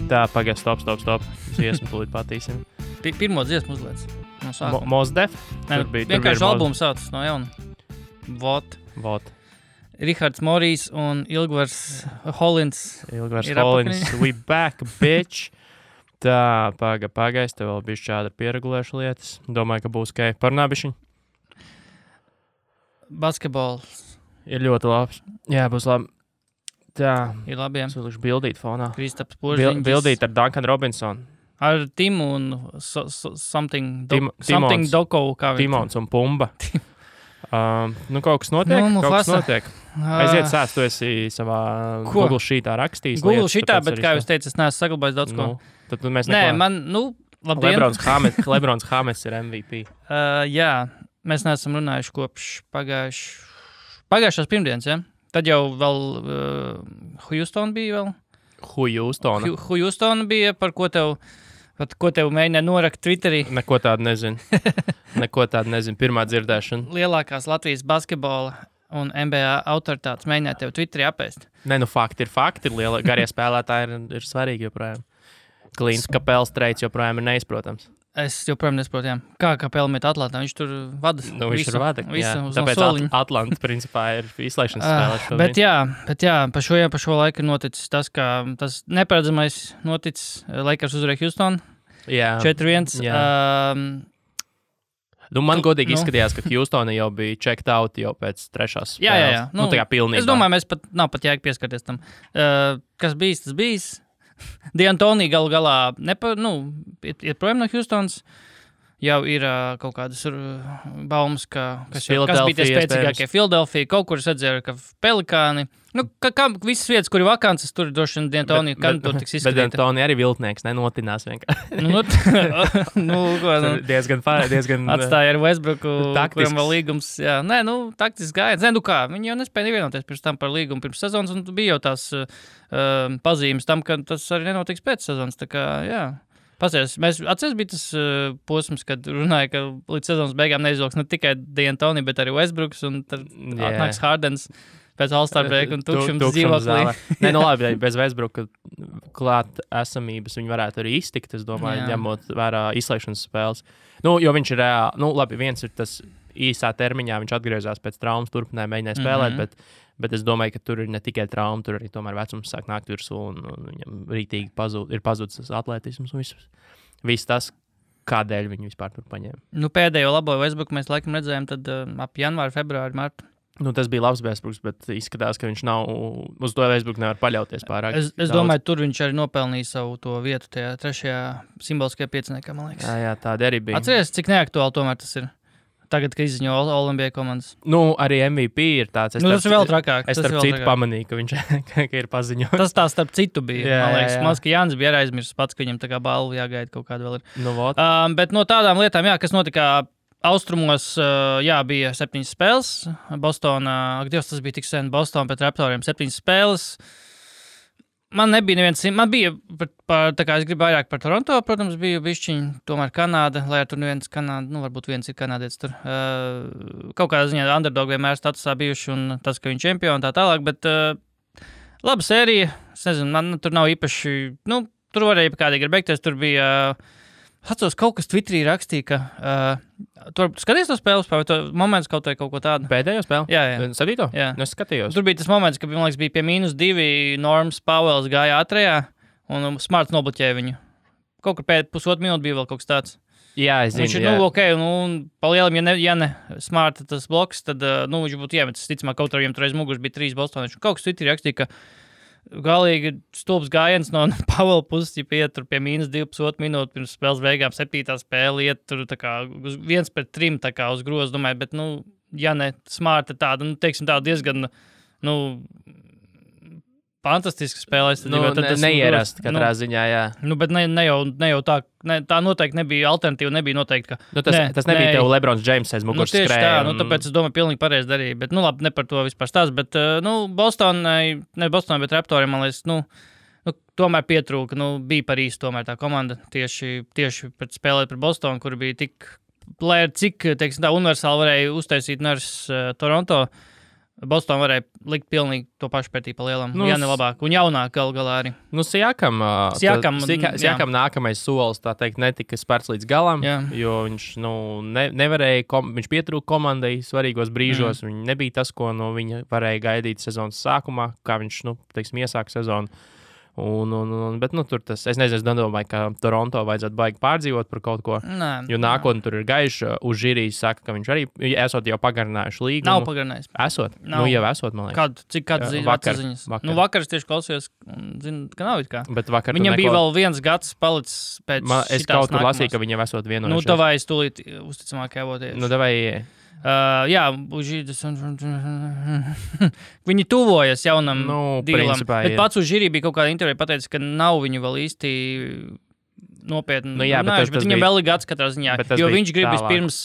Tā, pagaid, stop. Dziesmu tūlīt patīsim. Pirmo dziesmu uzliec. No sākuma. Mos Def? Vienkārši albums sauc no jauna. Vot. Rihards Morijs un Ilgvars Holins. We back, bitch. Tā, pagaid, tev vēl bišķi šādi pieregulēšu lietas. Domāju, ka būs ok. Parunā bišķiņ? Basketbols. Ir ļoti labs. Jā, būs labi. Tā. Ir labi, jā. Es vilkšu bildīt fonā. Kristaps Požiņģis. Bildīt ar Duncan Robinson. Ar Timu un something Doko. Timons un Pumba. Kaut kas notiek. Aiziet sēst, tu esi savā Google sheetā rakstījis. Google sheetā, bet kā jūs teicat, es neesmu saglabājis daudz ko. Tad mēs labdien. Lebrons Hames ir MVP. Jā, mēs neesam runājuši kopš pagājušās pirmdienas, ja? Tad jau vēl Houston bija vēl. Houston bija, par ko tev mēģināja norakt Twitterī. Neko tādu nezinu. Pirmā dzirdēšana. Lielākās Latvijas basketbola un NBA autoritātes mēģināja tev Twitterī apēst. Fakti ir fakti. Garie spēlētāji ir svarīgi joprojām. Klīns Kapels treids joprojām ir neizprotams. Es joprojām nesaprotu, jā. Kā Kapela met Atlantā, viņš tur vada. Viņš tur vada, jā. Tāpēc Atlanta principā ir izslēgšanas spēlē šobrīd. Bet jā, pa šo laiku ir noticis tas, ka tas neparedzamais noticis. Lakers uzvarēja Houston. Jā. 4-1. Man godīgi izskatījās, ka Houstona jau bija checked out jau pēc trešās spēles. Jā. Tā kā pilnībā. Es domāju, nav pat jēga pieskarties tam. Kas bijis, tas bijis. D'Antoni galu galā ir projām no Houstons. Jau ir kaut kādas baumas, kas bija tie spēcīgākie Philadelphia. Kaut kur es redzēju, ka Pelikāni. Kā visas vietas, kur ir vakances, tur droši vien D'Antoni kandidatūra tiks izskatīta. Bet D'Antoni arī viltnieks, nenotinās vienkārši. Diezgan atstāja ar Westbrooku, kuram vēl līgums. Jā. Taktisks gājiens. Viņi jau nespēja nevienoties pirms tam par līgumu pirms sezonas, un bija jau tās pazīmes tam, ka tas arī nenotiks pēc sezonas. Tā kā, jā. Atceries bija tas posms, kad runāja, ka līdz sezonas beigām neizvilks ne tikai D'Antoni, bet arī Westbrooks, un tad atnāks Hardens pēc All-Star break un tukšums dzīvoklī. Labi, bez Westbrooka klāt esamības viņi varētu arī iztikt, es domāju, ņemot vērā izslēgšanas spēles. Jo viņš ir reāli, viens ir tas īsā termiņā, viņš atgriezās pēc traumas, turpināja mēģināja spēlēt, bet es domāju, ka tur ir ne tikai trauma, tur arī tomēr vecums sāk nākt virsū un viņam rītīgi ir pazudis tas atletisms un viss tas, kādēļ viņi vispār tur paņēma. Pēdējo labo Westbrooku mēs laikam redzējām tad ap janvāru, februāru, martu. Tas bija labs Westbrooks, bet izskatās, ka viņš nav, uz to Westbrooku nevar paļauties pārāk. Es domāju, tur viņš arī nopelnīja savu to vietu tajā trešajā simboliskajā pieciniekā, man liekas. Jā, tāda arī bija. Atceries, cik neaktuāli tomēr tas ir? Tagad, kad izziņo All-NBA komandas. Arī MVP ir tāds. Tas ir vēl trakāk. Es starp citu pamanīju, ka viņš ir paziņojis. Tas tā starp citu bija. Man liekas, Mans, ka Jānis bija aizmirsis pats, ka viņam tā kā balvu jāgaida kaut kāda vēl ir. Bet no tādām lietām, kas notika austrumos, bija 7 spēles. Bostonā, tas bija tik sen, Boston pret Raptoriem 7 spēles. Man nebija neviens, man bija, tā kā es gribu vairāk par Toronto, protams, bija bišķiņi, tomēr Kanāda, lai ar tur neviens Kanāda, varbūt viens ir kanādietis tur. Kaut kādā ziņā underdog vienmēr statusā bijuši un tas, ka viņi čempioni tā tālāk, bet laba sērija, es nezinu, man tur nav īpaši, tur varēja kādīgi ir beigties, tur bija, atceros, kaut kas Twitterī rakstīja, ka tur skaties to spēles, vai to moments kaut ko tādu? Pēdējo spēli? Jā. 7. Jā. Es skatījos. Tur bija tas moments, ka, man liekas, bija pie -2, Norms Powells gāja ātrajā, un Smarts nobloķēja viņu. Kaut kur pēc pusotru minūtu bija vēl kaut kas tāds. Jā, es zinu. Viņš ir, ok, pa lielam, ja ne Smarta tas bloks, tad, viņš būtu iemetis, ticamāk, kaut arī viņam tur aiz muguras bija 3 Bostonieši. Kaut kas Twitterī rakstīja, ka galīgi stulbs gājiens no Pavela puses, ja iet tur pie -2,5 minūtes pirms spēles beigām, 7. spēle, iet tur tā kā 1-3 tā kā uz grozu, domāju, bet, ja ne Smarta tāda, teiksim tā diezgan, fantastiski spēlēs. Tas neierast katrā ziņā, jā. Bet ne jau tā, tā noteikti nebija alternatīva, nebija noteikti, ka... Tas nebija tev Lebrons James aiz muguras skrēja. Tieši tā, tāpēc es domāju, pilnīgi pareizi darīja, bet, labi, ne par to vispār stāst, bet, Bostonai, bet Raptoriem, man liekas, tomēr pietrūka, bija par īstu tomēr tā komanda, tieši pret spēlēt par Bostonu, kur bija tik, lai ar cik, teiksim tā, universāli varēja uztaisīt Nurse Toronto, Boston varēja likt pilnīgi to pašu pretī pa lielam. Ja ne labāk. Un jaunāk galā arī. Siakam nākamais solis, tā teikt, netika spērts līdz galam, jo viņš nevarēja, viņš pietrūka komandai svarīgos brīžos. Viņš nebija tas, ko no viņa varēja gaidīt sezonas sākumā, kā viņš, iesāka sezonu. Bet tur tas, es nezinu, es domāju, ka Toronto vajadzētu baigi pārdzīvot par kaut ko. Jo nākotnē tur ir gaiši. Uz žīrijas saka, ka viņš arī esot jau pagarinājuši līgumu. Nav pagarinājis. Esot? Jau esot, man liekas. Kādas ziņas? Vakar es tieši klausījos, zinu, ka nav it kā. Bet vakar viņam bija vēl viens gads palicis pēc es kaut kur lasīju, ka viņam esot vienojušies. Tavai es tūlīt uzticamāk jāvoties. Davai. Viņi tuvojas jaunam dīlam. Bet pats uz žīrī bija kaut kāda intervija pateicis, ka nav viņu vēl īsti nopietni. Bet viņam vēl ir gads katrā ziņā. Jo viņš grib vispirms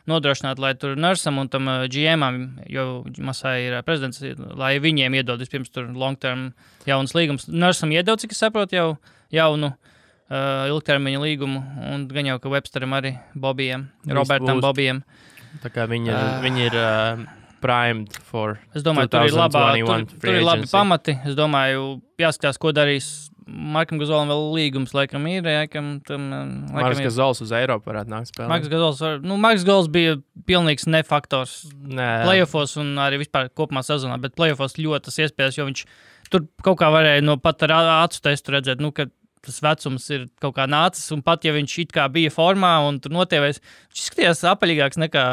nodrošināt, lai tur Nursam un tam GM-am, jo Masai ir prezidents, lai viņiem iedod vispirms tur long-term jaunas līgumus. Nursam iedod, cik es saprotu, jau jaunu ilgtermiņa līgumu. Un gan jau, ka Websteram arī Bobijam, Robertam Bobijam. Tā kā viņi ir primed for 2021 Es domāju, tur ir labi pamati. Es domāju, jāskatās, ko darīs Markam Gazolam vēl līgums, laikam ir. Marks Gazols uz Eiropu varētu nākt spēlēt. Marks Gazols bija pilnīgs nefaktors playoffos un arī vispār kopumā sezonā, bet playoffos ļoti tas iespējas, jo viņš tur kaut kā varēja pat ar acu testu redzēt, ka tas vecums ir kaut kā nācis, un pat, ja viņš it kā bija formā un tur notievēs, viņš izskatījās apaļīgāks nekā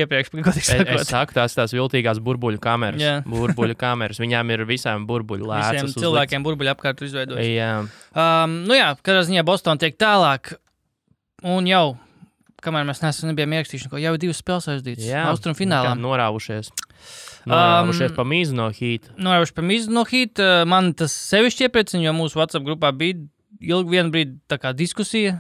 iepriekš, godīgi sakot. Es saku, tās viltīgās burbuļu kameras. Burbuļu kameras. Viņām ir visām burbuļu lēcas. Visiem cilvēkiem burbuļu apkārt izveidojas. Jā. Kādā ziņā Boston tiek tālāk, un jau, kamēr mēs nebijām ierakstījuši, jau 2 spēles aizdītas. Austrum finālā. Norāvušies pa mīzu no Heat. Man tas sevišķi iepriecina, jo mūsu WhatsApp grupā bija ilgi vienu brīdi tā kā diskusija.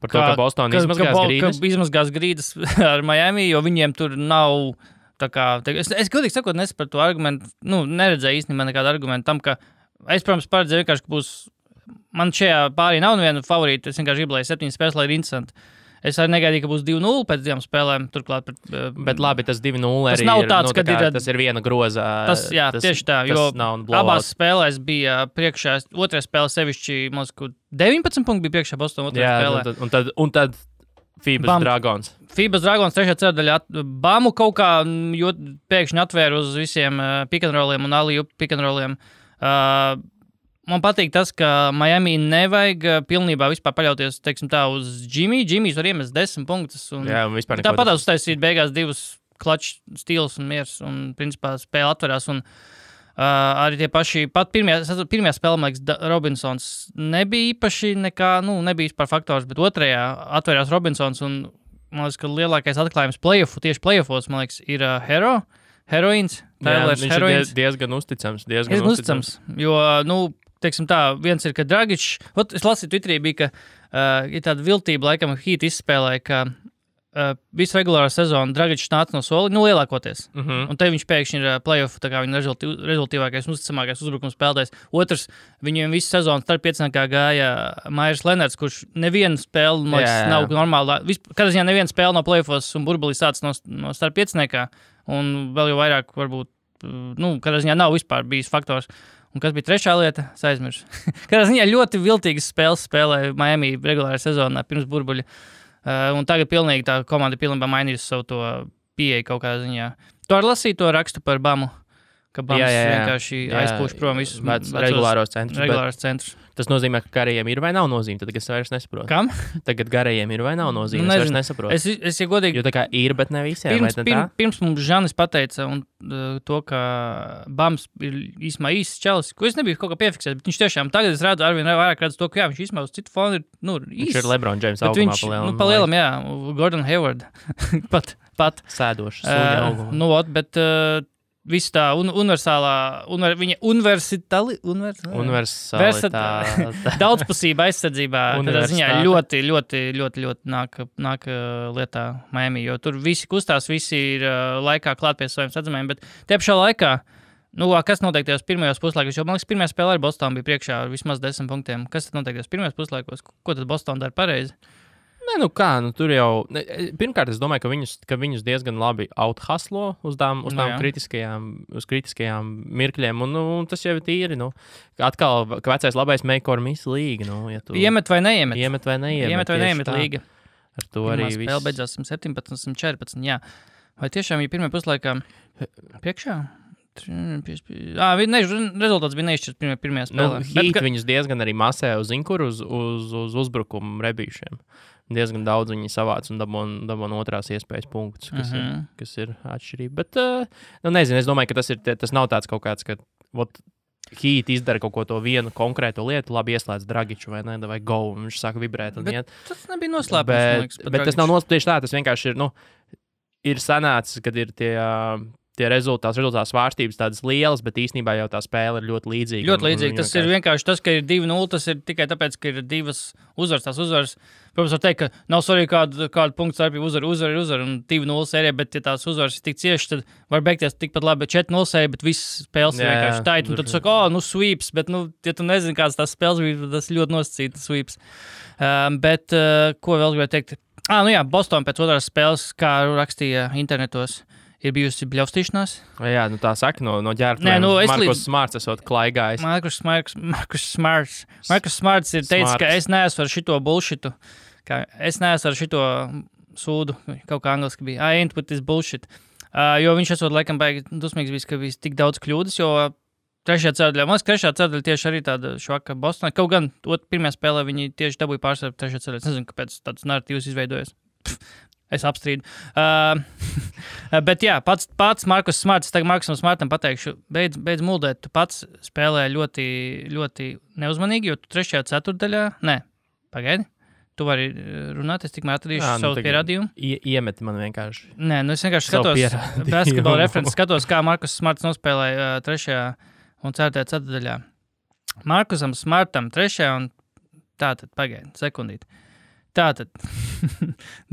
Par to, ka Boston izmazgās grīdas ar Miami, jo viņiem tur nav tā kā... Es godīgi sakot, nesapratu to argumentu, neredzēju īstenībā nekādu argumentu tam, ka es, protams, paredzēju vienkārši, ka būs... Man šajā pārī nav neviena favorīta, es vienkārši gribu, lai 7 spēles, lai ir interesanti. Es arī negaidīju, ka būs 2-0 pēc 2 spēlēm. Turklāt, bet labi, tas 2-0 arī nav tāds, tas ir viena groza. Tieši tā, jo abās spēlēs bija priekšā, otrajā spēlē sevišķi, man liekas, 19 punkti bija priekšā Boston otrajā spēlē. Un tad Phoebus Dragons. Phoebus Dragons trešajā ceturdaļā Bamu kaut kā pēkšņi atvēra uz visiem pick and rolliem un alley-oop pick and rolliem. Man patīk tas, ka Miami nevajag pilnībā vispār paļauties, teiksim tā, uz Jimmy. Jimmy's var iemest 10 punktus. Un tāpat uztaisīt beigās 2 clutch steals un miers. Un, principā, spēle atverās. Un arī tie paši, pat pirmajā spēlē, man liekas, Robinsons nebija īpaši nekā, nebija vispār faktors, bet otrajā atverās Robinsons. Un, man liekas, ka lielākais atklājums tieši playoffos, man liekas, ir Heroīns. Viņš ir diezgan uzticams. Diezgan uzticams. Jo, teiksim tā, viens ir, ka Dragičs, es lasīju Twitterī, bija, ka ir tāda viltība, laikam, Heat izspēlēja, ka visu regulāro sezonu Dragičs nāca no soli, lielākoties. Un te viņš pēkšņi ir playoff, tā kā viņa rezultīvākais un uzticamākais uzbrukums spēlētājs. Otrs, viņiem visu sezonu starp pieciniekā gāja Myers Leonards, kurš nevienu spēli, man liekas, nav normāli. Kādā ziņā nevienu spēli no playoffos un burbulī sāc no starp pieciniekā, un vēl jau vairāk varbūt, kādā ziņā nav vispār bijis faktors. Un kas bija trešā lieta? Es aizmirsu. Kādā ziņā ļoti viltīgas spēles spēlēja Miami regulārā sezonā pirms burbuļa. Un tagad pilnīgi tā komanda pilnībā mainījusi savu to pieeju kaut kādā ziņā. Tu arī lasīji to rakstu par Bamu, ka Bams vienkārši aizpūš prom visus regulāros centrus. centrus. Tas nozīmē, ka garajiem ir vai nav nozīme. Tad es vairs nesaprotu. Kam? Tagad garajiem ir vai nav nozīme. Es vairs nesaprotu. Es ja godīgi... Jo tā kā ir, bet ne visiem. Pirms mums Žanis pateica to, ka Bams ir īsumā īsts čalis, ko es nebiju kaut kā piefiksēt, bet viņš tiešām tagad es redzu, arvien vairāk redzu to, ka viņš īsumā uz citu fonu ir, īsts. Viņš ir LeBron James augumā palielam. Palielam, jā. Gordon Hayward. pat. Sēdošs. Sūļa bet... Viss tā viņa daudzpusība aizsardzībā tādā ziņā ļoti, ļoti, ļoti, ļoti nāk lietā Miami, jo tur visi kustās, visi ir laikā klāt pie saviem sadzamiem, bet tie pašā laikā, kas notiek tajos pirmajos puslaikos, jo man liekas, pirmajā spēlē ar Boston bija priekšā ar vismaz 10 punktiem. Kas tad notiek tajos pirmajos puslaikos? Ko tad Boston dara pareizi? Nē, tur jau. Pirmkārt, es domāju, ka viņus diezgan labi outhuslo uz tām kritiskajām mirkļiem. Un tas jau ir tīri. Atkal, ka vecais labais make or miss līga. Ja iemet vai neiemet? Iemet vai neiemet līga. Ar to arī viss. Spēle beidzās 17, 14. Jā. Vai tiešām bija pirmajā puslaikā priekšā? Rezultāts bija neizšķirts pirmajā spēlē. Heat viņus diezgan arī masē uz uzbrukumu rebīšiem. Diezgan daudz viņi savāc un dabūna otrās iespējas punktus, kas ir atšķirība. Bet, nezinu, es domāju, ka tas nav tāds kaut kāds, ka Heat izdara kaut ko to vienu konkrēto lietu, labi ieslēdz Dragiču vai ne, vai go, un viņš sāk vibrēt un iet. Tas nebija noslēpums. Bet tas nav noslēpums tieši tā, tas vienkārši ir sanācis, kad ir tie rezultāts svārstības tādas lielas, bet īstenībā jau tā spēle ir ļoti līdzīga. Ļoti līdzīga. Tas ir vienkārši tas, ka ir 2-0, tas ir tikai tāpēc, ka ir divas uzvaras. Tās uzvaras, protams, var teikt, ka nav svarīgi kādu punktu starpību uzvar un 2-0 sērija, bet ja tās uzvaras ir tik cieši, tad var beigties tikpat labi 4-0 sērija, bet viss spēles ir vienkārši tait. Un tad tu saka, sweeps, bet, ja tu nezini, kāds tās spēles bija, tas ļoti nosacīts sweeps. Bet, ko vēl gribēju teikt? Boston pēc otrās spēles, kā rakstīja internetos, ir bijusi bļaustīšanās. Jā, tā saka, no ģērbtuviem. Markus Smarts esot klaigājis. Markus Smarts ir teicis, ka es neesmu ar šito bullshitu. Es neesmu ar šito sūdu. Kaut kā angliski bija. I ain't with this bullshit. Jo viņš esot laikam baigi dusmīgs bijis, ka bija tik daudz kļūdas, jo trešajā ceturdaļā tieši arī tāda švaka Bostonā. Kaut gan pirmajā spēlē viņi tieši dabūja pārsvaru trešajā ceturdaļā. Es nezinu, kāpēc tāds narratīvs izveidojas. Es apstrīdu. Bet jā, pats Markus Smarts, tagad Markusam Smartam pateikšu, beidz muldēt, tu pats spēlē ļoti, ļoti neuzmanīgi, jo tu trešajā ceturdaļā, pagaidi, tu vari runāt, es tikmēr atradīšu savu pierādījumu. Iemeti man vienkārši. Nē, es vienkārši skatos, basketbola references skatos, kā Markus Smarts nospēlēja trešajā un ceturtajā ceturdaļā. Markusam Smartam trešajā un tātad, pagaidi, sekundīti. Tātad,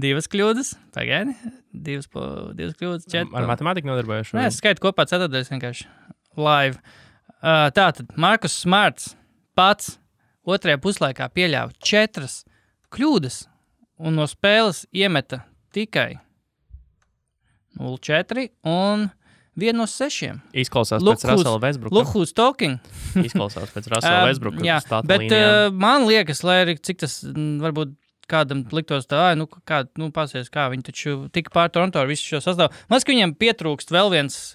2 kļūdas, pagaidi, 2 kļūdas, 4. Ar matemātiku nodarbojuši? Nē, es skaitu kopā ceturtdaļas vienkārši live. Tātad, Markus Smarts pats otrajā puslaikā pieļāva 4 kļūdas un no spēles iemeta tikai 0-4 un 1 no 6. Izklausās pēc Russella Westbrooka. Look who's talking. Izklausās pēc Russella Westbrooka. Jā, bet man liekas, lai arī cik tas varbūt kādam liktos tā, pasies, kā viņi taču tika pār Toronto ar visu šo sastāvu. Man liekas, ka viņiem pietrūkst vēl viens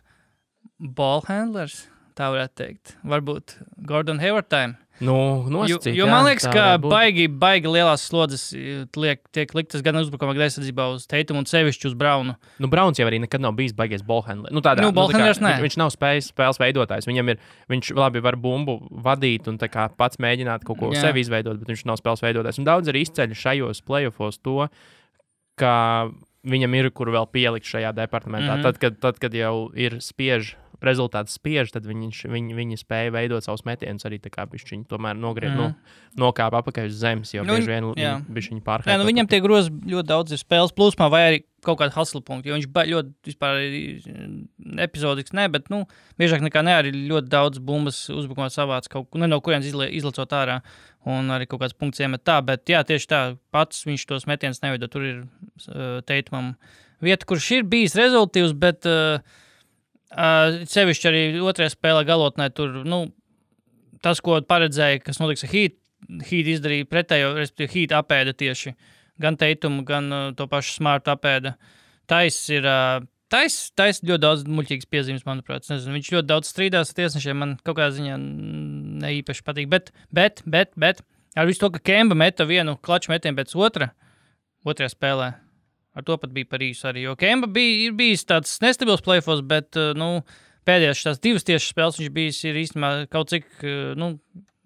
ball handlers, tā varētu teikt. Varbūt Gordon Hayward time. Nosacīt. Jo man liekas, ka baigi lielās slodzes tiek liktas gan uzbrukumā, gan aizsardzībā uz Teitumu un sevišķi uz Braunu. Brauns jau arī nekad nav bijis baigies ball handler. Ball handlers nē. Viņš nav spēles veidotājs. Viņš labi var bumbu vadīt un tā kā pats mēģināt kaut ko sevi izveidot, bet viņš nav spēles veidotājs. Un daudz arī izceļ šajos playoffos to, ka viņam ir, kur vēl pielikt šajā departamentā. Tad, kad jau ir rezultāts spiež, tad viņi spēja veidot savus metienus arī tā kā bišķiņi tomēr nokāpa apakaļ uz zemes, jo bieži vien bišķiņi pārkārtot. Viņam tie grozi ļoti daudz ir spēles plūsmā vai arī kaut kāda hustle punkti, jo viņš ļoti vispār epizodisks, bet biežāk nekā arī ļoti daudz bumbas uzbrukumā savāc kaut ko, no kurienes izlicot ārā un arī kaut kāds punkts iemet tā, bet jā, tieši tā, pats viņš tos metienus neveido, tur ir Teitumam vieta, kurš ir bijis rezultīvs, bet sevišķi arī otrajā spēlē galotnē tur, tas, ko paredzēja, kas notiks ar Heat izdarīja pretējo, respektīvi Heat apēda tieši gan Teitumu, gan to pašu Smartu apēda. Tais ļoti daudz muļķīgas piezīmes, manuprāt. Nezinu, viņš ļoti daudz strīdās ar tiesnešiem, man kaut kādā ziņā neīpaši patīk, bet ar visu to, ka Kemba meta vienu klaču metienu pēc otrajā spēlē. Ar to pat bija par īsu arī, jo Kemba ir bijis tāds nestabils playoffs, bet pēdējās tās 2 tiešas spēles viņš bijis ir īstenībā kaut cik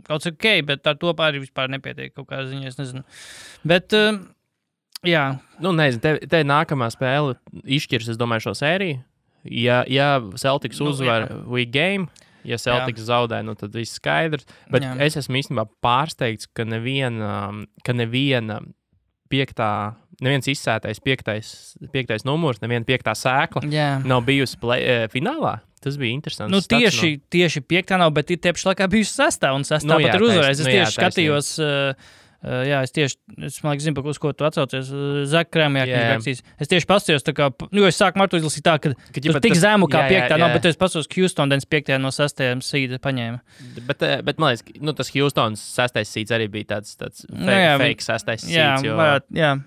ok, bet ar to arī vispār nepietiek kaut kādā ziņā, es nezinu. Bet, jā. Nezinu, te nākamā spēle izšķirs, es domāju, šo sēriju. Ja Celtics uzvar week game, ja Celtics zaudē, tad viss skaidrs. Bet es esmu īstenībā pārsteigts, ka neviena neviens izsētais 5. numurs, neviena 5. sēkla nav bijusi finālā. Tas bija interesants. Tieši 5. nav, bet ir tieši laikā bijusi 6. un 6. pat ir uzvarējis. Es tieši skatījos Es zinu, uz ko tu atsaucies. Zach Krēmjāk. Es tieši pasījos, es sāku Martu izlasīt tā, ka tur tik zemu kā 5. nav, bet es pasījos Houston 5. no 6. seeda paņēma. Bet man liekas, tas Houstons 6. seeds arī bija tāds fake 6. seeds.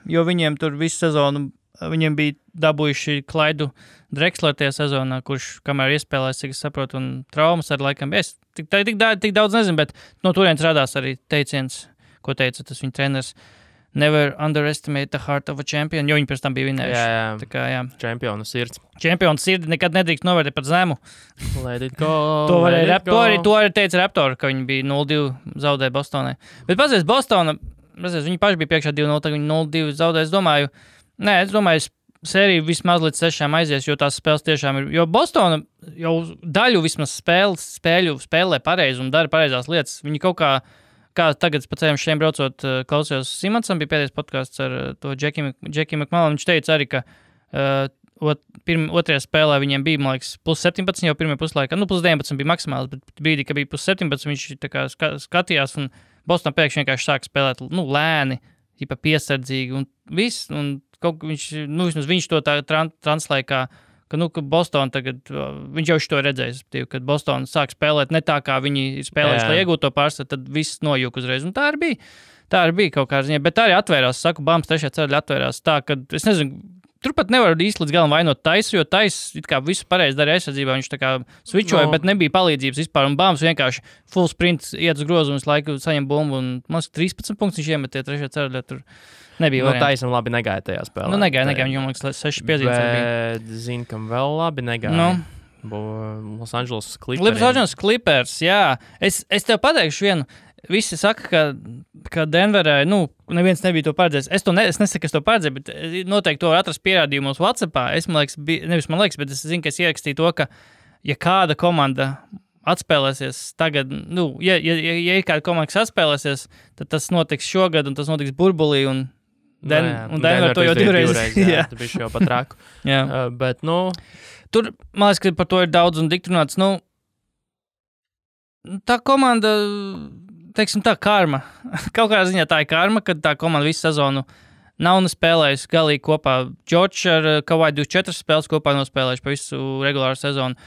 Jo viņiem tur visu sezonu, viņiem bija dabūjuši Klaidu Drexler tajā sezonā, kurš kamēr iespēlēs, cik es saprotu, un traumas ar laikam. Es tik daudz nezinu, bet no turienes radās arī teiciens, ko teica tas viņa treneris. Never underestimate the heart of a champion, jo viņi pēc tam bija vinējuši. Jā. Čempionu sirds. Čempionu sirdi nekad nedrīkst novērtēt par zemu. Let it go. To arī teica Raptori, ka viņi bija 0-2 zaudēja Bostonai. Bet pazies, Bostona, viņi paši bija priekšā 2-0, tagad viņi 0-2 zaudēja. Es domāju, sērija vismaz līdz 6 aizies, jo tās spēles tiešām ir. Jo Bostona jau daļu vismaz spēlē pareizi un dara pareizās lietas. Viņi kaut kā tagad pa ceļam šiem braucot, klausījos Simonsam, bija pēdējais podcasts ar to Jackie McMullen. Viņš teica arī, ka otrajā spēlē viņiem bija, man liekas, plus 17 jau pirmajā puslaikā. Plus 19 bija maksimāls, bet brīdī, ka bija plus 17, viņš tā kā skatījās un Bostonā pēkšņi vienkārši sāka spēlēt lēni, piesardzīgi un viss. Un vismaz viņš to tā translēja, ka Boston tagad, viņš jau to redzējis, kad Boston sāk spēlēt ne tā, kā viņi ir spēlējuši, lai iegūtu to pārsvaru, tad viss nojūk uzreiz. Un tā arī bija kaut kādā ziņā, bet tā arī atvērās, Bams 3. ceļā atvērās tā, ka, es nezinu, turpat nevar īsti līdz galam vainot Taisu, jo Tais it kā visu pareizi darīja aizsardzībā, viņš tā kā switchoja, bet nebija palīdzības vispār, un Bams vienkārši full sprint iet uz grozu un visu laiku saņem bumbu, un man 13 punktus viņš iemetie 3. ceļā, tur nebija varianti. Taisam labi negāja tajā spēlē. Negāja, viņam liekas 6 piezīmes bija. Bet zinu, kam vēl labi negāja. Los Angeles Clippers. Los Angeles Clippers, jā. Es tev pateikšu vienu. Visi saka, ka Denverē, neviens nebija to paredzējis. Es nesaku, ka es to paredzēju, bet noteikti to atrast pierādījumos WhatsAppā. Es zinu, ka es ierakstīju to, ka ja kāda komanda atspēlēsies tagad, ja ir kāda komanda, kas atspēlēsies, tad tas notiks šogad, un tas notiks burbulī, un Denver to jau divreiz. Jā, tu bišķi jau pat raku. Bet, tur, man liekas, ka par to ir daudz un dikti runāts. Tā komanda, teiksim tā, karma. Kaut kādā ziņā tā ir karma, kad tā komanda visu sezonu nav nespēlējusi galīgi kopā. George ar Kawhi 24 spēles kopā nospēlējuši pa visu regulāru sezonu.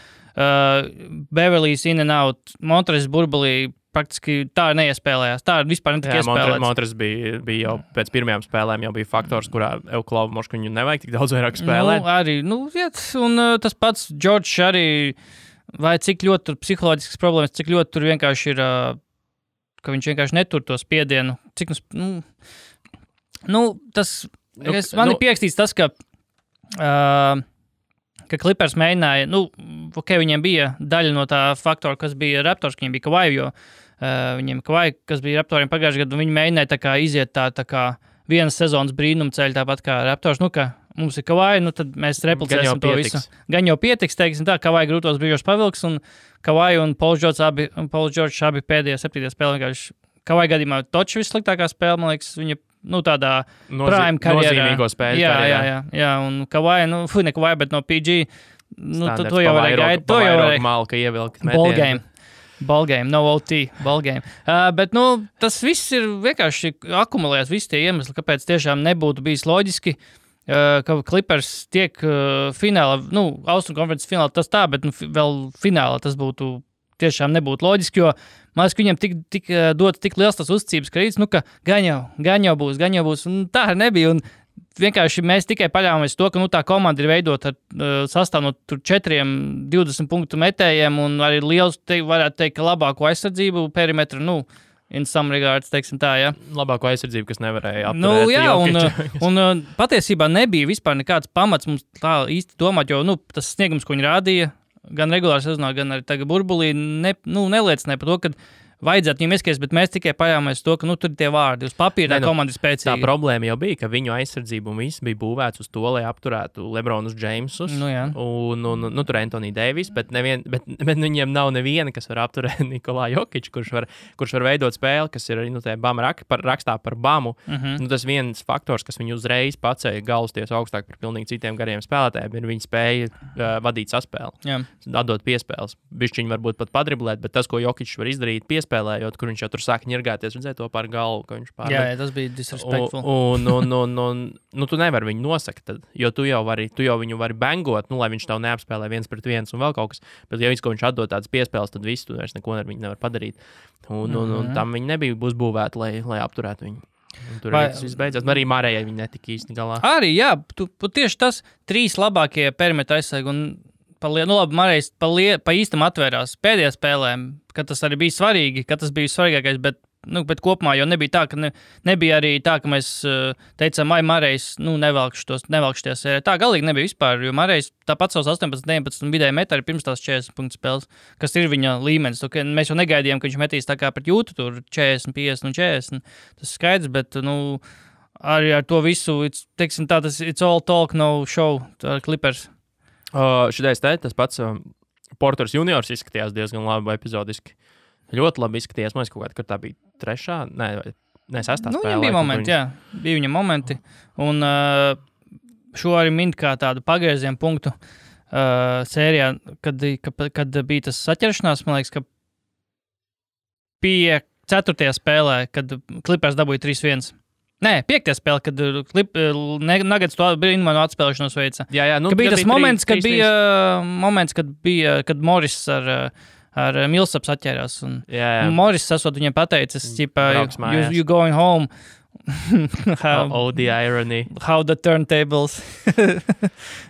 Beverly's in and out, Montres burbulī praktiski tā neiespēlējās. Tā vispār netika iespēlēts. Montres bija jau pēc pirmajām spēlēm jau bija faktors, kurā Euklauvu Moškuņu nevajag tik daudz vairāk spēlēt. Un tas pats George arī, vai cik ļoti tur psiholoģiskas problēmas, cik ļoti tur vienkārši ir, ka viņš vienkārši netur to spiedienu. Man ir pierakstīts tas, ka Clippers mēģināja, viņiem bija daļa no tā faktora, kas bija Raptors, ka viņiem bija Kawhi, jo viņiem Kawhi, kas bija Raptoriem pagājušajā gadā, viņi mēģināja tā kā iziet tā kā vienas sezonas brīnuma ceļu, tāpat kā Raptors, ka mums ir Kawhi, tad mēs replicēsim to visu. Gan jau pietiks, teiksim tā, Kawhi grūtos brīžos pavilks, un Kawhi un Pauls George abi pēdējā 7. spēlē vienkārši. Kawhi gadījumā toču vissliktākā spēle, man liekas, viņa tādā prime karjerā. Nozīmīgo spēļu karjerā. Jā, un Kawhi, ne Kawhi, bet no PG, to jau varēja gaidīt. To jau varēja malka ievilkt. Ballgame, no OT, ballgame. Bet, tas viss ir vienkārši akumulēts, visi tie iemesli, kāpēc tiešām nebūtu bijis loģiski, ka Clippers tiek finālā, Austrum konferences finālā tas tā, bet vēl finālā tas būtu tiešām nebūtu loģiski, jo man liekas, ka viņam tik dots tik liels tas uzticības kredīts, ka gan jau būs, un tā arī nebija, un vienkārši mēs tikai paļāvāmies to, ka tā komanda ir veidota ar sastāvu no 4 20 punktu metējiem, un arī liels, varētu teikt, ka labāko aizsardzību perimetru, in some regards, teiksim tā, jā. Labāko aizsardzību, kas nevarēja apturēt. Un patiesībā nebija vispār nekāds pamats mums tā īsti domāt, jo, tas sniegums, ko viņi rādīja, gan regulāri sezonā, gan arī tagad burbulī, neliecināja par to, ka vajadzētu viņiem ieskaties, bet mēs tikai paļāvāmies to, ka tur ir tie vārdi. Uz papīra tā komanda ir spēcīga. Tā problēma jau bija, ka viņu aizsardzība un viss bija būvēts uz to, lai apturētu Lebronus Jamesus un tur Anthony Davis, bet viņiem nav neviena, kas var apturēt Nikolā Jokiču, kurš var veidot spēli, kas ir rakstā par Bamu. Tas viens faktors, kas viņu uzreiz pacēja galvasties augstāk par pilnīgi citiem gariem spēlētājiem, ir viņa spēja vadīt saspēli, atdot piespēles. Bišķiņi varbūt pat padriblēt, bet tas, ko Jokičs var izdarīt piespēles, piespēlējot, kur viņš jau tur sāk ņirgāties, redzēja to par galvu, ka viņš pārmet. Jā, tas bija disrespectful. Un tu nevari viņu nosakt, tad, jo tu jau viņu vari bangot, lai viņš tev neapspēlē 1-1 un vēl kaut kas. Bet, ja viņš atdod tādas piespēles, tad viss tu vairs neko ar viņu nevar padarīt. Un tam viņi nebija uzbūvēti, lai apturētu viņu. Un tur viss beidzās. Arī Marējai viņi netika īsti galā. Arī, jā, tieši tas 3 labākie perimetra aizsargi un Marējs pa īstam atvērās pēdējā spēlēm, kad tas arī bija svarīgi, kad tas bija svarīgākais, bet kopumā jau nebija tā, ka nebija arī tā, ka mēs teicām, Marējs, nevelkšu tie sērē. Tā galīgi nebija vispār, jo Marējs tāpat savus 18-19 vidēji met arī pirms tās 40 punktu spēles, kas ir viņa līmenis. Mēs jau negaidījām, ka viņš metīs tā kā pret Jūtu, tur 40, 50 un 40. Tas skaidrs, bet, arī ar to visu, teiksim tā, it's all talk, no show, tā Clippers. Šitais tas pats Porters juniors izskatījās diezgan labi epizodiski. Ļoti labi izskatījās. Man liekas, kaut kādā, kad tā bija 3. Ne 6. spēlē. Viņam bija momenti, jā. Bija viņa momenti. Un šo arī mint kā tādu pagriezienu punktu sērijā, kad bija tas saķeršanās, man liekas, ka pie 4. spēlē, kad Clippers dabūja 3-1. Nē, 5. spēle, kad Nuggets to brīnumainu atspēlēšanos veica. Jā, ka bija tas moments, kad Morris ar Millsaps atķērās. Un Morris esot viņiem pateicis, you going home. The irony. How the turntables.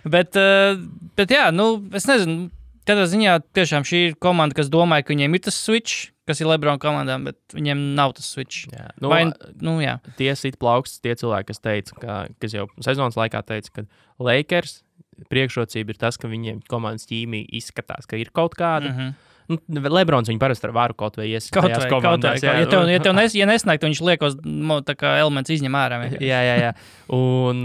bet jā, es nezinu, katrā ziņā tiešām šī ir komanda, kas domāja, ka viņiem ir tas switch, kas ir LeBron komandām, bet viņiem nav tas switch. Jā. Jā. Tie sit plauksts, tie cilvēki, kas teica, kas jau sezonas laikā teica, ka Lakers priekšrocība ir tas, ka viņiem komandas ķīmija izskatās, ka ir kaut kāda. Lebrons viņu parasti ar varu kaut vai iesist tajās komandās. Ja nesnāk, viņš liekos tā kā elements izņem ārā. Jā. Un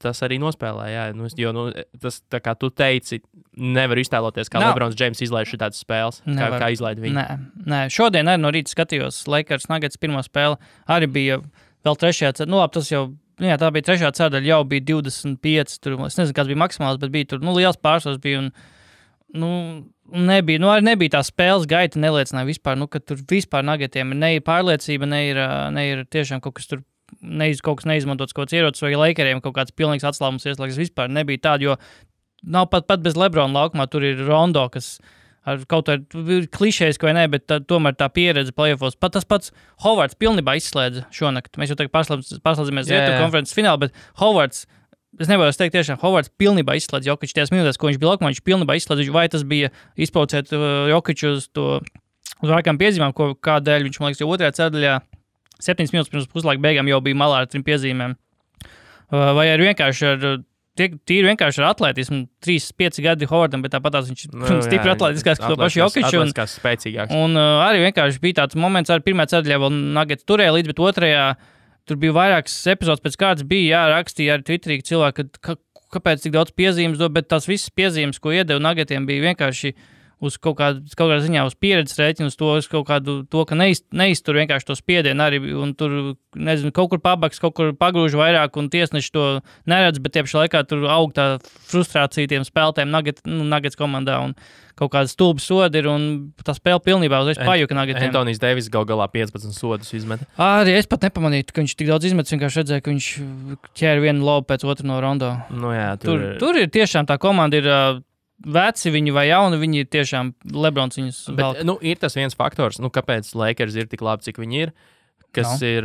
tas arī nospēlē, jā. Jo tas, tā kā tu teici, nevar iztēloties, kā Lebrons James izlaiž šitādas spēles, kā izlaid viņu. Nē, šodien arī no rīta skatījos Lakers Nuggets pirmo spēli, arī bija vēl 3. ceturdaļa, tas jau, tā bija 3. ceturdaļa, jau bija 25, tur, es nezinu, kāds bija maksimāls, bet bija tur, liels pārsvars bija un, nebija tā spēles gaita, neliecināja vispār, ka tur vispār Nuggetiem ne ir pārliecība, ne ir tiešām kaut kas tur, kaut kas neizmantots kaut kāds ierocis, vai Lakeriem kaut kāds pilnīgs atslābums ieslēgas, vispār nebija tāda, jo nav pat bez Lebrona laukumā, tur ir Rondo, kas ar kaut kā klišējis, vai ne, bet tomēr tā pieredze playoffos. Pat tas pats Hovards pilnībā izslēdza šonakt. Mēs jau tagad pārslēdzamies Rietu konferences finālu, bet Hovards, es nevaru teikt tiešām, Hovards pilnībā izslēdz Jokiču tajās minūtēs, ko viņš bija laukumā, viņš pilnībā izslēdz, vai tas bija izpaucēt Jokiču uz vairākām piezīmēm, kādēļ viņš, man liekas, jau 2. ceturdaļā 7 minūtes pirms puslaika beigām jau bija malā ar 3 piezīmēm. Vai arī vienkārši ar atletismu, 3-5 gadi Hovardam, bet tāpat viņš stipri atletiskās, ka to pašu Jokiču. Un arī vienkārši bija tāds moments, arī 1. ceturdaļā vēl Nuggets turēja līdz, bet 2. Tur bija vairākas epizodes pēc kārtas, bija rakstīja arī Twitterī cilvēki, kāpēc tik daudz piezīmes dod, bet tās visas piezīmes, ko iedeva Nuggetiem, bija vienkārši uz kaut kādā ziņā uz pieredzes rēķinu, uz kaut kādu to, ka neiztur vienkārši to spiedienu arī, un tur, nezinu, kaut kur pabaks, kaut kur pagrūž vairāk, un tiesneši to neredz, bet tiepši laikā tur aug tā frustrācija tiem spēlētājiem Nuggets komandā, un kaut kāda stulba sodi ir, un tā spēle pilnībā uzreiz pajuka Nuggetiem. Antonijs Deivis galā 15 sodus izmet. Arī es pat nepamanīju, ka viņš tik daudz izmet, vienkārši redzēju, ka viņš ķēra vienu lobu pēc otru no Rondo. Jā, tur ir tiešām tā komanda ir veci viņi vai jauni, viņi ir tiešām Lebrons viņus velk. Bet, ir tas viens faktors, kāpēc Lakers ir tik labi, cik viņi ir, kas ir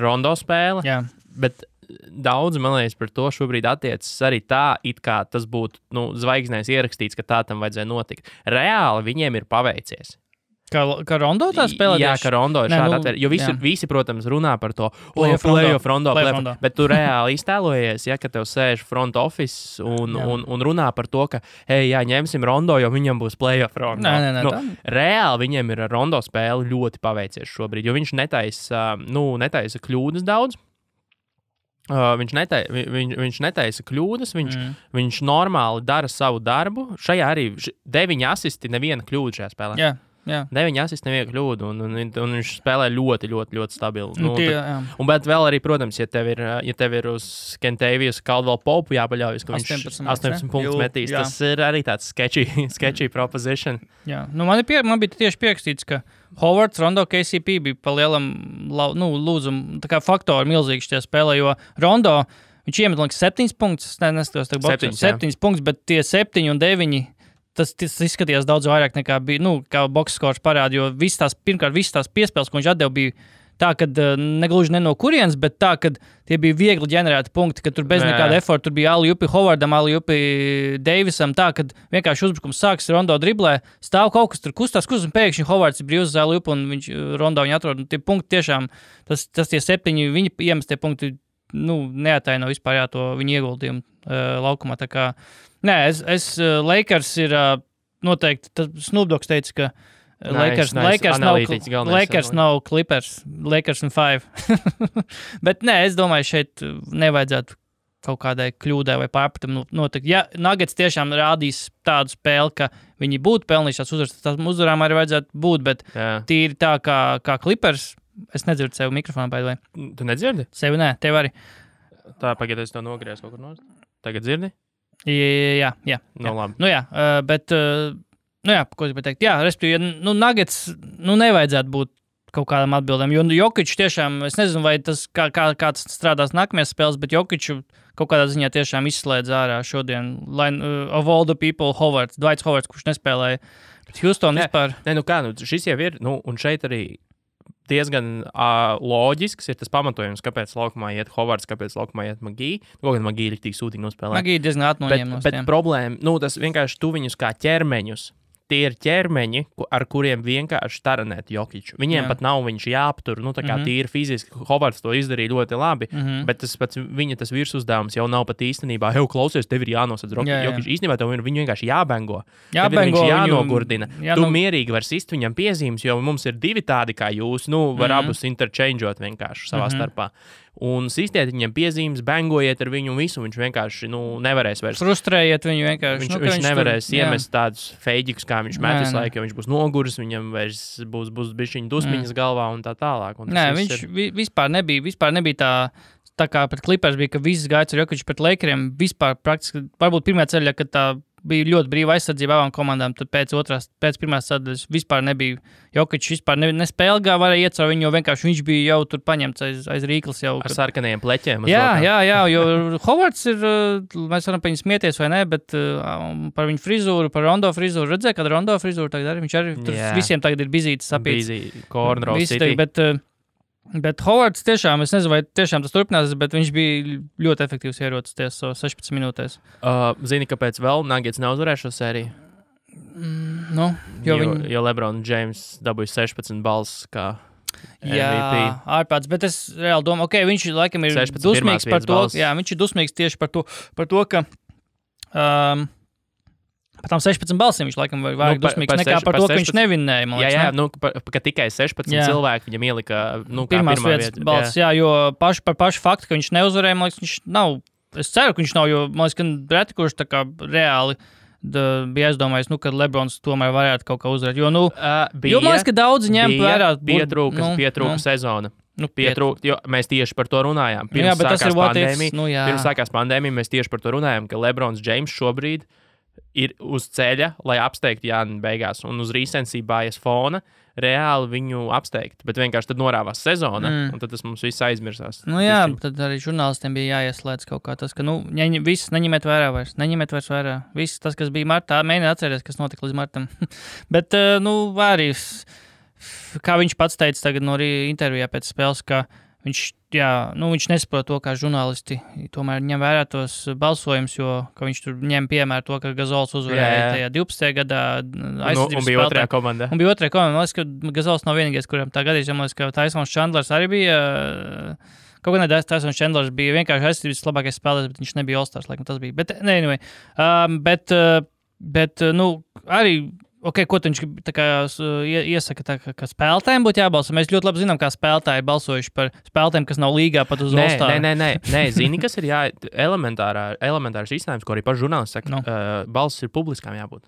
Rondo spēle, bet daudz, man liekas, par to šobrīd attiecas arī tā, it kā tas būtu zvaigznēs ierakstīts, ka tā tam vajadzēja notikt. Reāli viņiem ir paveicies. Kā Rondo tā spēlē? Jā, ka Rondo ir šādi atvērt. Jo visi, protams, runā par to playoff Rondo. Bet tu reāli iztēlojies, ka tev sēž front office un runā par to, ka, ņemsim Rondo, jo viņam būs playoff Rondo. Nē, reāli viņiem ir ar Rondo spēli ļoti paveicies šobrīd, jo viņš netaisa kļūdas daudz. Viņš netaisa kļūdas, viņš normāli dara savu darbu. Šajā arī 9 asisti, neviena kļūda šajā spēlē. Jā. 9 asists, nevienu kļūdu, un viņš spēlē ļoti, ļoti, ļoti stabili. Bet vēl arī, protams, ja tev ir uz Kentavijas Caldwell Pope jāpaļaujas, ka viņš 18 punktus metīs, tas ir arī tāds sketchy proposition. Jā, man bija tieši pierakstīts, ka Howards, Rondo, KCP bija pa lielam lūdzumu, tā kā faktori milzīgi šajā spēlē, jo Rondo, viņš iemet, liekas, 7 punktus, neskatos, 7 punktus, bet tie 7 un 9, tas izskatījās daudz vairāk nekā bija, kā box scores parāda, jo pirmkārt, visas tās piespēles, ko viņš atdeva, bija tā, ka negluži ne no kurienes, bet tā, ka tie bija viegli ģenerēti punkti, ka tur bez nekāda efforta, tur bija alley-oopi Howardam, alley-oopi Davisam, tā, ka vienkārši uzbrukums sāks, Rondo driblē, stāv kaut kas tur kustās, un pēkšņi Howards ir brīvs uz alley-oopi, un Rondo viņu atrod, un tie punkti tiešām, tas tie 7, viņi iemestie punkti, neataino vispār to viņu ieguldījumu laukumā, tā kā, Lakers ir noteikti, Snoop Dogs teica, ka Lakers nav Clippers, Lakers un 5. Bet es domāju, šeit nevajadzētu kaut kādai kļūdai vai pārpratam notikt. Ja Nuggets tiešām rādīs tādu spēli, ka viņi būtu pelnījušās uzvaras, tad uzvarām arī vajadzētu būt, bet tīri tā kā Clippers, es nedzirdu sev mikrofonā, by the way. Tu nedzirdi? Sevi nē, tev arī. Tā, pagaid, es to nogriezu kaut kur nost. Tagad dzirdi? Jā. Labi. Bet... ko es gribēju teikt? Jā, respektīvi, Nuggets, nevajadzētu būt kaut kādam atbildēm, jo Jokic tiešām, es nezinu, vai tas kā tas strādās nākamajās spēles, bet Jokic kaut kādā ziņā tiešām izslēdz ārā šodien, of all the people, Dwights Howards, kurš nespēlēja pret Houston vispār. Šis jau ir, un šeit arī diezgan loģisks ir tas pamatojums, kāpēc laukumā iet Howards, kāpēc laukumā iet Magī. Gan Magī ir tik sūtīgi nospēlē. Magī diezgan atnoņēmos. Bet problēma, tas vienkārši tu viņus kā ķermeņus. Tie ir ķermeņi, ar kuriem vienkārši taranēt Jokiču. Viņiem pat nav viņš jāaptur, tā kā tīri fiziski. Howards to izdarīja ļoti labi, bet viņa virsuzdevums jau nav pat īstenībā. Klausies, tev ir jānosadz Jokiču. Īstenībā tev viņu vienkārši jābengo. Viņš jānogurdina. Tu mierīgi var sist viņam piezīmes, jo mums ir 2 tādi kā jūs. Var abus interchangeot vienkārši savā starpā. Un sistiet viņam piezīmes, bengojiet ar viņu un visu. Viņš vienkārši nevarēs vairs. Frustrējiet viņu vienkārši. Viņš nevarēs iemest tādus feiģikus, kā viņš met visu laiku, jo viņš būs noguris, viņam vairs būs bišķiņu dusmiņas galvā un tā tālāk. Un viņš vispār nebija tā kā pret Clippers bija, ka viss gāja ar Jokiču pret Lakeriem. Vispār praktiski, varbūt pirmā ceļā, kad tā bija ļoti brīva aizsardzība abām komandām, tad pēc pirmās sadaļas vispār nebija Jokičs, vispār nespēlgā varēja iet caur viņu, jo vienkārši viņš bija jau tur paņemts aiz rīklas jau. Ar sarkanajiem pleķiem. Jā, jo Howards ir, mēs varam par viņu smieties vai ne, bet par viņu frizūru, par Rondo frizūru, redzēja, kad Rondo frizūru tagad arī, viņš arī tur visiem tagad ir bizītis sapīts. Cornrow City. Bet Howards tiešām, es nezinu, vai tiešām tas turpinās, bet viņš bija ļoti efektīvs ierocis 16 minūtēs. Zini, kāpēc vēl Nuggets neuzvarēja šo sēriju? Jo LeBron James dabūja 16 balss kā MVP. Jā, ārprāts, bet es reāli domāju, viņš laikam ir dusmīgs par to, viņš ir dusmīgs tieši par to, ka par tām 16 balsīm viņš laikam vairāk dusmīgs nekā par to, ka viņš nevinnēja. Ka tikai 16 cilvēki viņam ielika pirmās vietas balss, jo par pašu faktu, ka viņš neuzvarēja, man liekas, viņš nav, es ceru, ka viņš nav, jo man liekas, ka reti, kurš tā kā reāli bija aizdomājis, ka Lebrons tomēr varētu kaut kā uzvarēt, jo man liekas, ka daudzi ņem vērā. Pietrūka sezona. Jo mēs tieši par to runājām. Pirms sākās pandēmija, mēs tieši par to runājām, ka Lebrons James šobrīd ir uz ceļa, lai apsteigtu Jāni beigās, un uz recency bias fona reāli viņu apsteigt, bet vienkārši tad norāvās sezona, un tad tas mums viss aizmirsās. Tad arī žurnālistiem bija jāieslēdz kaut kā tas, ka, viss neņemiet vairs vērā. Viss tas, kas bija martā, mēģiniet atcerēties, kas notika līdz martam. Bet, arī, kā viņš pats teica tagad no intervijā pēc spēles, ka viņš nesaprot to, kā žurnālisti tomēr ņem vērā tos balsojumus, jo viņš tur ņem piemēru to, ka Gazols uzvarēja tajā 12. gadā aizsardzības spēlē. Un bija otrajā komandā. Man liekas, ka Gazols nav vienīgais, kuram tā gadījis, jo man liekas, ka Tysons Chandlers arī bija. Kaut kā Tysons Chandlers bija vienkārši aizsardzības labākais spēlētājs, bet viņš nebija All-Stars, laikam tas bija. Bet, anyway. Arī. Ko viņš iesaka, ka spēlētājiem būtu jābalso? Mēs ļoti labi zinām, kā spēlētāji balsojuši par spēlētājiem, kas nav līgā pat uz All-Star. Nē, zini, kas ir elementārs risinājums, ko arī paši žurnālisti saka, balss ir publiskām jābūt.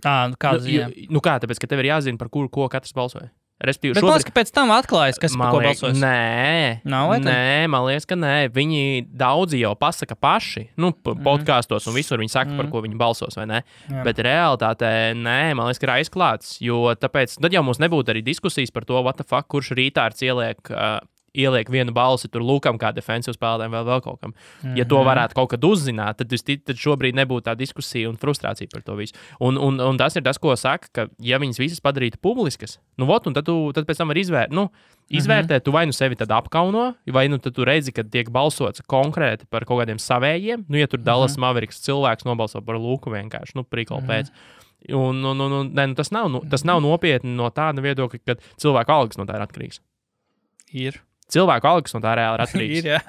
Kāda ziņa? Tāpēc, ka tev ir jāzina, par kuru ko katrs balsoja. Bet šobrīd... pēc tam atklājas, kas par ko balsos. Nē, man liekas, ka nē. Viņi daudzi jau pasaka paši, podkāstos un visur viņi saka, par ko viņi balsos, vai ne? Jā. Bet realitātē, nē, man liekas, ka ir aizklāts, jo tāpēc, tad jau mums nebūtu arī diskusijas par to, what the fuck, kurš rītārds ieliek vienu balsi tur Lukam kā defensīvu spēlētājiem vēl kaut kam. Ja to varētu kaut kad uzzināt, tad šobrīd nebūtu tā diskusija un frustrācija par to visu. Un tas ir tas, ko saka, ka ja viņas visas padarītu publiskas, un tad pēc tam var izvērtēt, tu vai sevi tad apkauno, vai tad tu redzi, ka tiek balsots konkrēti par kaut kādiem savējiem, ja tur Dallas Mavericks cilvēks nobalso par Luku vienkārši, prikolu pēc. Tas nav nopietni no tāda viedokļa, ka cilvēku algas no tā ir atkarīgs. Ir. Cilvēku algas no tā reāli ir atkarīgs. Ir, jā.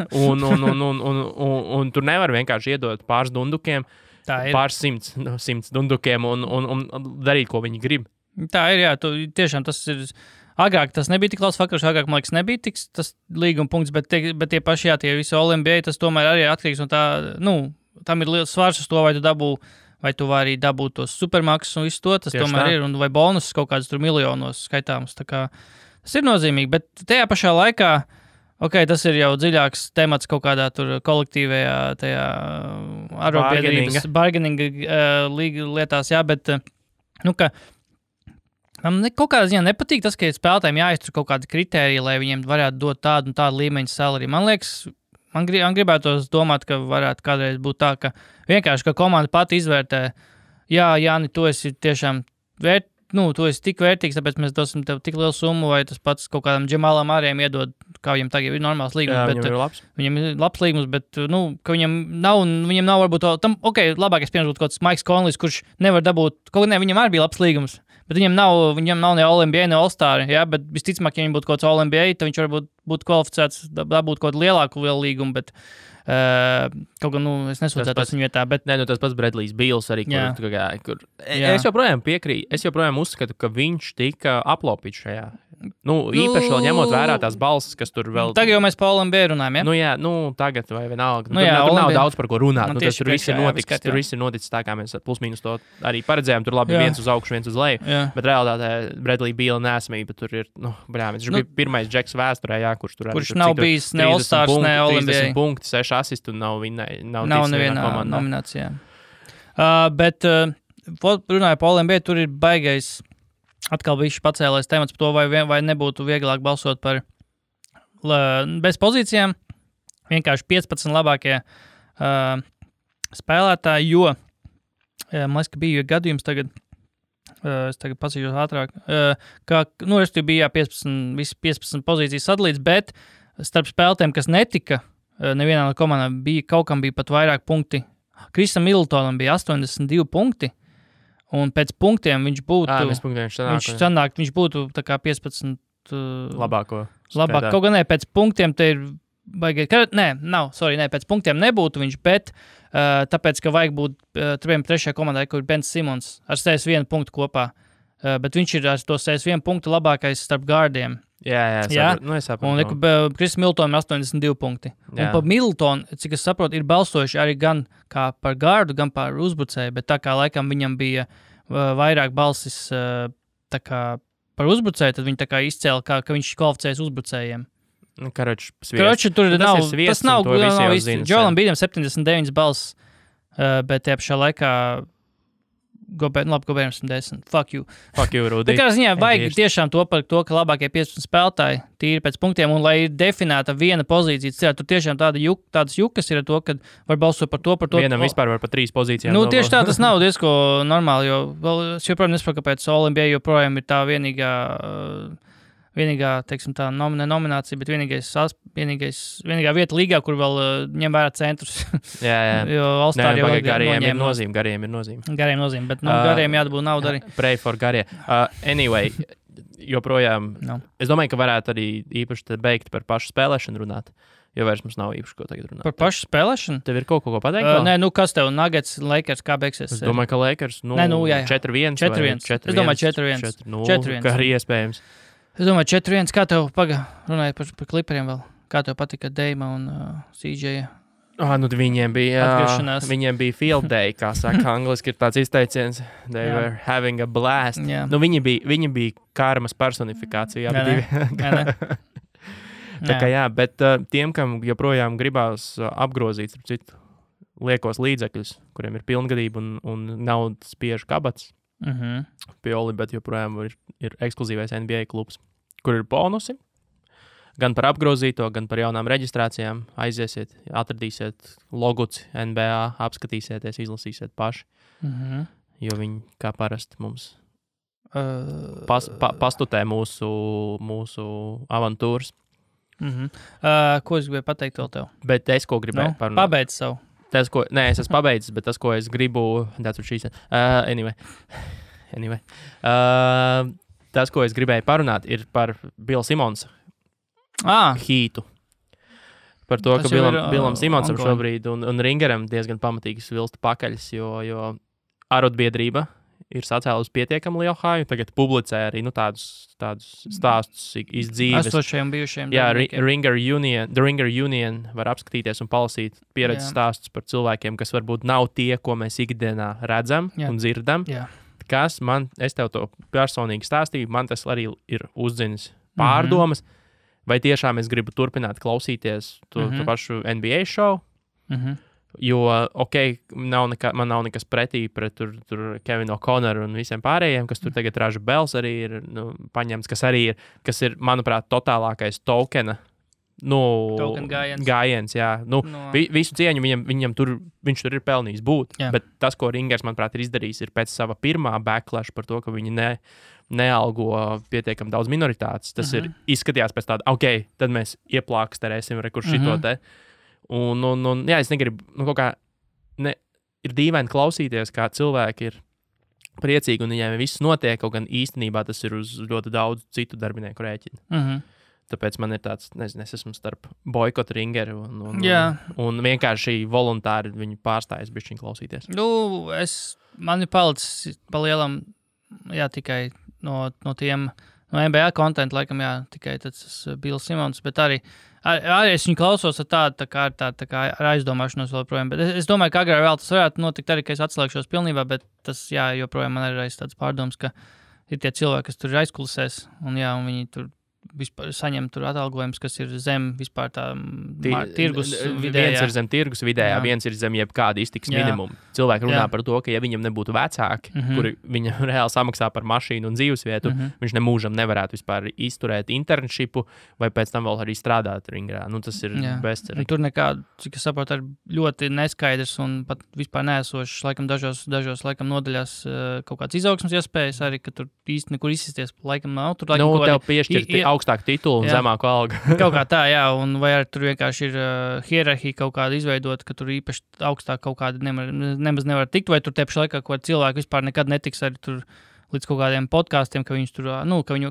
un tur nevar vienkārši iedot pāris dundukiem, pāris simts dundukiem un darīt, ko viņi grib. Tā ir, jā. Tiešām tas ir... Agrāk tas nebija tik liels faktors, agrāk, man liekas, nebija tas līguma punkts, bet tie paši, tie visi All-NBA, tas tomēr arī atkarīgs no tā, tam ir liels svars uz to, vai tu vari dabūt tos supermaksas un visu to, tas tieši tomēr tā. Ir, un vai bonus kaut kāds tur miljonos skaitāms, tā kā tas ir nozīmīgi, bet tajā pašā laikā, tas ir jau dziļāks temats kaut kādā tur kolektīvajā tajā arotbiedrības bargaininga lietās, jā, bet, ka man kaut kādā ziņā nepatīk tas, ka spēlētājiem jāiztur kaut kādi kritēriji, lai viņiem varētu dot tādu un tādu līmeņu salari. Man liekas, man gribētos domāt, ka varētu kādreiz būt tā, ka vienkārši, ka komanda pati izvērtē, Jāni, tu esi tiešām tu esi tik vērtīgs, tāpēc mēs dosim tev tik lielu summu, vai tas pats kaut kādam Džemalam Āriem iedod, kā viņam tagad ir normāls līgums. Jā, viņam ir labs. Viņam ir labs līgums, bet, ka viņam nav varbūt labākais piemērs būtu kaut kāds Maiks Konlijs, kurš nevar dabūt, viņam arī bija labs līgums, bet viņam nav ne All-NBA, ne All-Star, bet visticamāk, ja viņam būtu kaut kāds All-NBA, tad viņš varbūt būtu kvalificēts dabūt kaut kādu lielāku līgumu, bet kaut gan, es nesūdzētos viņu vietā, bet... Nē, tas pats Bradlijs Bīls arī, kur es joprojām piekrītu, es joprojām uzskatu, ka viņš tika aplaupīts šajā. Īpaši vēl ņemot vērā tās balsis, kas tur vēl... Tagad jau mēs pa All-NBA runājam, ja? Tagad vai vienalga. Tur nav daudz par ko runāt. Tas tur viss ir noticis tā, kā mēs plus-mínus to arī paredzējām. Tur labi viens uz augšu, viens uz leju. Bet realitātē Bradley Bīla nesamība tur ir, viņš bija pirmais džeks vēsturē, kurš tur arī... Kurš nav bijis ne All-Stars, ne All-NBA. 30 punkti, 6 asistu un nav nevienā nominācijā. Bet runāju pa All-NBA, tur ir baigais... Atkal bija pacēlais temats par to, vai nebūtu vieglāk balsot par bez pozīcijām. Vienkārši 15 labākie spēlētāji, jo, man liekas, ka bija gadījums tagad, es tagad pasīšos ātrāk, ka, bija 15 pozīcijas sadalīts, bet starp spēlētājiem, kas netika, nevienā no komandām kaut kam bija pat vairāk punkti. Krisam Middletonam bija 82 punkti. Un pēc punktiem viņš būtu... Viņš būtu tā kā 15... Labāko. Kaut gan pēc punktiem te ir... pēc punktiem nebūtu viņš, bet tāpēc, ka vajag būt trešajā komandai, kur ir Ben Simmons ar 61 punktu kopā. Bet viņš ir ar to 61 punktu labākais starp gārdiem. Jā. Es saprotu. Un Kris Middletonam ir 82 punkti. Jā. Un par Middletonu, cik es saprotu, ir balsojuši arī gan kā par gārdu, gan par uzbrucēju, bet tā kā laikam viņam bija vairāk balsis tā kā par uzbrucēju, tad viņi tā kā izcēla, ka viņš kvalificējas uzbrucējiem. Karoči, tur nav, tas nav īsti. Joelam Bīdam 79 balss, bet tie pašā laikā Gobēram 10. Fuck you, Rudi. Tā kā ziņā vajag tiešām to par to, ka labākie 15 spēlētāji tīri pēc punktiem, un lai ir definēta viena pozīcija, tur tiešām tādas jukas ir ar to, ka var balsot par to. Vienam vispār var par 3 pozīcijām. Tieši tā, tas nav diezko normāli, jo es joprojām nesaprotu, kāpēc All-NBA joprojām ir tā vienīgā, teiksim tā, nominācija, bet vienīgā vieta līgā, kur vēl ņem vērā centrus. Jā. Jo All-Star jau gariem ir nozīme. Gariem nozīme, bet gariem jādabūt naudu arī. Pray for garie. Anyway, joprojām, es domāju, ka varētu arī īpaši beigt par pašu spēlēšanu runāt. Jo vairs mums nav īpaši, ko tagad runāt. Par pašu spēlēšanu? Tev ir kaut ko pateikt? Nē, kas tev Nuggets, Lakers, kā beigsies? Es domāju, ka Lakers, 4-1. 4-1. Es domāju, 4-1. 4-0, kā arī iespējams. Es domāju, 4-1. Kā tev runāja par Clipperiem vēl? Kā tev patika Deima un CJ Viņiem bija field day, kā saka angliski, ir tāds izteiciens. They were having a blast. Viņi bija karmas personifikācija. Tā kā bet tiem, kam joprojām gribās apgrozīt citu liekos līdzekļus, kuriem ir pilngadība un naudas spiež kabats, Pioli, bet joprojām ir ekskluzīvais NBA klubs, kur ir bonusi. Gan par apgrozīto, gan par jaunām reģistrācijām. Aiziesiet, atradīsiet loguci NBA, apskatīsieties, izlasīsiet paši. Jo viņi, kā parasti, mums pastutē mūsu avantūras. Ko es gribēju pateikt vēl tev? Bet es, ko gribēju parunāt. Pabeidz savu. Es esmu pabeidzis, bet tas, ko es gribu... Anyway. Tas, ko es gribēju parunāt, ir par Bill Simonsa hītu. Par to, ka Billam Simonsam šobrīd un Ringeram diezgan pamatīgi svilsta pakaļs, jo arotbiedrība ir sacēlusi pietiekami lielu haju. Tagad publicē arī tādus stāstus iz dzīves. Esošajiem bijušiem. Jā, The Ringer Union var apskatīties un palasīt pieredzes stāstus par cilvēkiem, kas varbūt nav tie, ko mēs ikdienā redzam un dzirdam. Kas es tev to personīgi stāstīju, man tas arī ir uzdzinis pārdomas. Vai tiešām es gribu turpināt klausīties to pašu NBA šovu? Jo, man nav nekas pretī pret tur Kevinu O'Connoru un visiem pārējiem, kas tur tagad Raža Bels arī ir paņemts, kas ir, manuprāt, totālākais tokena gājiens, jā. Visu cieņu viņam viņš tur ir pelnījis būt, bet tas, ko Ringers, manuprāt, ir izdarījis, ir pēc sava pirmā backlash par to, ka viņi nealgo pietiekam daudz minoritātes. Tas ir izskatījās pēc tāda, tad mēs ieplāksterēsim šito te. Es negribu, kaut kā, ir dīvaini klausīties, kā cilvēki ir priecīgi un viņiem viss notiek, kaut gan īstenībā tas ir uz ļoti daudz citu darbinieku rēķina. Tāpēc man ir tāds, nezinu, es esmu starp boikotu Ringeru un vienkārši voluntāri viņu pārstājas bišķiņ klausīties. Man ir palicis pa lielam, tikai no tiem, no NBA kontentu, laikam, tikai tas Bills Simons, bet arī es viņu klausos ar tādu ar aizdomāšanos vēl projām, bet es domāju, ka agrāk vēl tas varētu notikt arī, ka es atslēgšos pilnībā, bet tas, joprojām man ir tāds pārdoms, ka ir tie cilvēki, kas tur ir aizkulisēs, un viņi tur vispār saņem tur atalgojums, kas ir zem vispār tā tirgus vidējā. Viens ir zem tirgus vidējā, viens ir zem jebkāda iztiks minimumu. Cilvēki runā par to, ka ja viņam nebūtu vecāki, kuri viņam reāli samaksā par mašīnu un dzīvesvietu, viņš nemūžam nevarētu vispār izturēt internshipu vai pēc tam vēl arī strādāt Ringrā. Tas ir bezcerīgi. Tur nekāda, cik es saprotu, ir ļoti neskaidrs un pat vispār neesošs, laikam dažos laikam nodaļās kaut kāds izaugsmas iespējas arī, ka tur īsti nekur izsisties, laikam nav. Tur laikam tev piešķirt augstāku titulu un zemāku algu. Kaut kā tā, un vai arī tur vienkārši ir hierarhija kaut kāda izveidota, ka tur īpaši augstāk kaut kāda nemaz nevar tikt, vai tur tieši laikā, ko cilvēki vispār nekad netiks arī tur līdz kaut kādiem podkāstiem, ka viņus tur,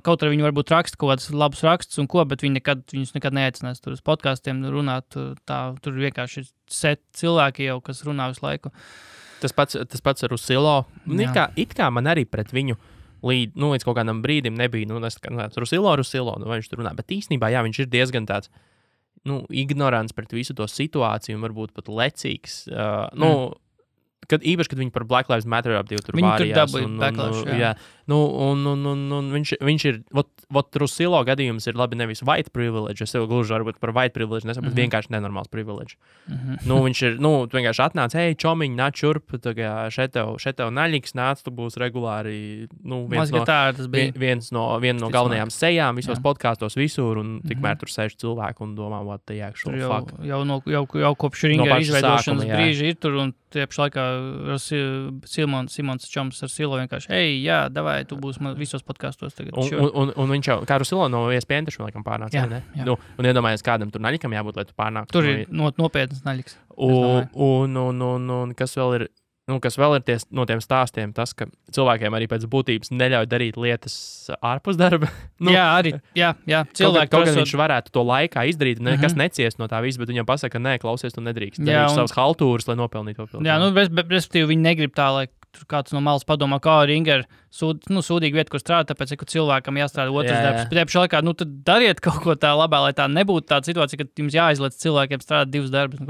kaut arī viņi varbūt raksta kaut kādus labus rakstus un ko, bet viņus nekad neaicinās tur uz podkāstiem runāt, tur vienkārši ir set cilvēki jau, kas runā visu laiku. Tas pats ar Rusilo. It kā man arī pret viņu līdz kaut kādam brīdim nebija, Rusilo, vai viņš tur runā, bet īstenībā, viņš ir diezgan tāds, ignorants pret visu to situāciju un varbūt pat lecīgs, īpaši, kad viņi par Black Lives Matter apdīvu tur vārījās. Viņi tur dabūja backlash, Viņš ir, Rusilo gadījums ir labi nevis white privilege, es jau gluži varbūt par white privilege nesaku, bet vienkārši nenormāls privilege. Viņš ir, tu vienkārši atnāc, čomiņ, nāc šurp, šeit tev naļiks, nāc, tu būs regulāri, viena no galvenajām sejām visos podkāstos visur, un tikmēr tur sēž cilvēki un domā, what the actual fuck. Jau kopš Ringera izveidošanas brīža ir tur, un tiepš laikā Simons čoms ar Silo vienkārši, davai, tu būs visos podkastos tagad. Un viņš jau, kā Rusilo no ESPN taču laikam pārnāca, ne? Un iedomājies, kādam tur naļikam jābūt, lai tu pārnāktu. Tur ir nopietnas naļiks. Un kas vēl ir no tiem stāstiem, tas, ka cilvēkiem arī pēc būtības neļauj darīt lietas ārpus darba. Cilvēki. Kaut gan viņš varētu to laikā izdarīt, nekas neciest no tā visa, bet viņam pasaka, ka nē, klausies, tu nedrīkst. Darīšu savas haltūras, lai nopelnītu to pilnīgi. Respektīvi, viņi negrib tā, lai tur kāds no malas padomā, kā Ringer sūdīga vieta, kur strādāt, tāpēc, ka cilvēkam jāstrādā otrs darbs. Bet pašā laikā, tad dariet kaut ko tā labā, lai tā nebūtu tāda situācija, ka jums jāizliec cilvēkiem strādāt 2 darbus.